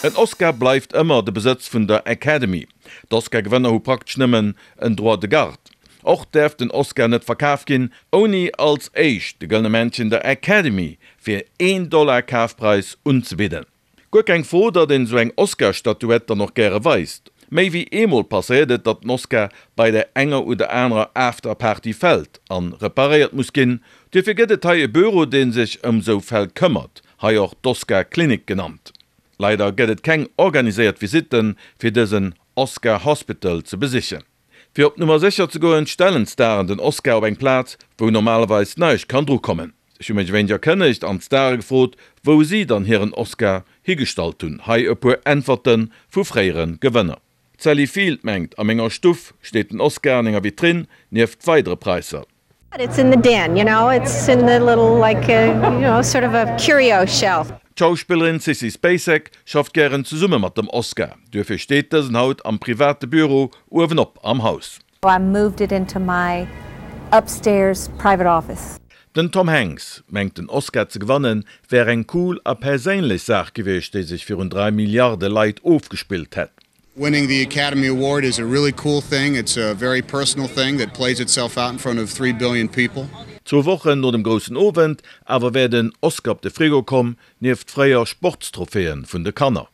En Oscar bleift ëmmer de Besëtz vun der Academy. D'Oscar-Gewënner hu praktesch nëmmen en Droit de garde. Och däerf den Oscar net verkaf ginn, ouni als éischt de Gëllene Männchen der Academy fir een Dollar Kafpreis unzebidden. Guer keng Fro, datt een esou eng Oscar-Statuett dann och gäre weist. Méi wéi eemol passéiert et, datt den Oscar bei där enger oder anerer After-Party fält an reparéiert muss ginn. Duerfir gëtt et hei e Büro, dee sech ëm esou Fäll këmmert, hei och d'Oscar-Klinik genannt. Leider gëtt et keng organiséiert Visitten, fir dësen Oscar Hospital ze besichen. Fir op Nummer sécher ze goen, stellen d'Staren den Oscar op eng Plaz, wou normalerweis näischt kann dru kommen. Ech hu mech e wéineg erkënnegt an d'Stare gefrot, wou si dann hiren Oscar higestallt hunn. Hei e puer Äntwerte vu fréiere Gewënner. D'Sally Field mengt, A menger Stuff steet den Oscar an enger Vitrinn, nieft weidere Praisser. It's in the den, you know, it's in the little like a, you know, sort of a curio shelf. D'Schauspillerin Sissy Spacek schafft gären zesumme mat dem Oscar, duerfir steet dësen haut am private Büro uewenop am Haus. I moved it into my upstairs private office. Den Tom Hanks mengt den Oscar ze gewannen wär eng cool a perséinlech Saach gewiescht déi sech virun 3 Milliarde Leit ofgespillt hätt. Winning the Academy Award is a really cool thing, it's a very personal thing that plays itself out in front of 3 billion people. Zwou Wochen no dem groussen Owend awer wär den Oscar op de Frigo komm, nieft fréier Sportstrophäen vun de Kanner.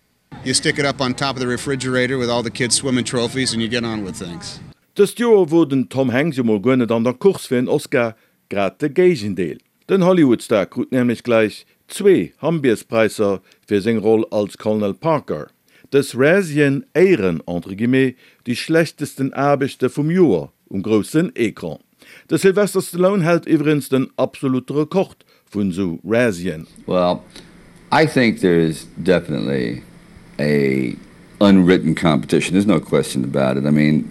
You stick it up on top of the refrigerator with all the kids swimming trophies and you get on with things. Dëst Joer wor den Tom Hanks jo mol guer net an der Course fir en Oscar, grad de Géigendeel. Den Hollywood-Star krut nämlech gläich zwee Hambierspräisser fir seng Roll als Colonel Parker. Dës Razzien éieren, entre guillemets, déi schlechtesten Aarbechte vum Joer um groussen Ecran. De Sylvester Stallone hält iwwregens den absolute Rekord vun sou Razzien. Well, I think there is definitely a unwritten competition, there's no question about it, I mean.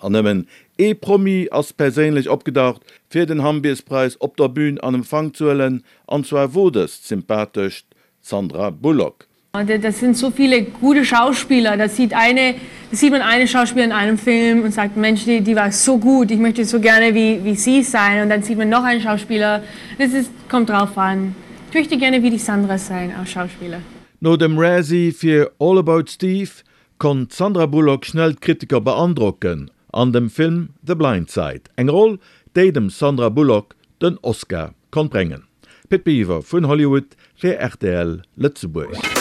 An nëmmen ee Promi ass perséinlech opgedaucht, fir den Hambierspräis op der Bühn an Empfang ze huelen, an zwar wor dëst d'sympathescht Sandra Bullock. Das sind so viele gute Schauspieler, da sieht eine, da sieht man eine Schauspieler in einem Film und sagt, Mensch, die, die war so gut, ich möchte so gerne wie, wie sie sein und dann sieht man noch einen Schauspieler, das ist, kommt drauf an. Ich möchte gerne wie die Sandra sein als Schauspieler. No dem Razzie fir All About Steve konnt d'Sandra Bullock schnell d'Kritiker beandrocken an dem Film The Blind Side, eng Roll, déi dem Sandra Bullock den Oscar konnt bréngen. Pit Biwer vun Hollywood fir rtl Lëtzebuerg.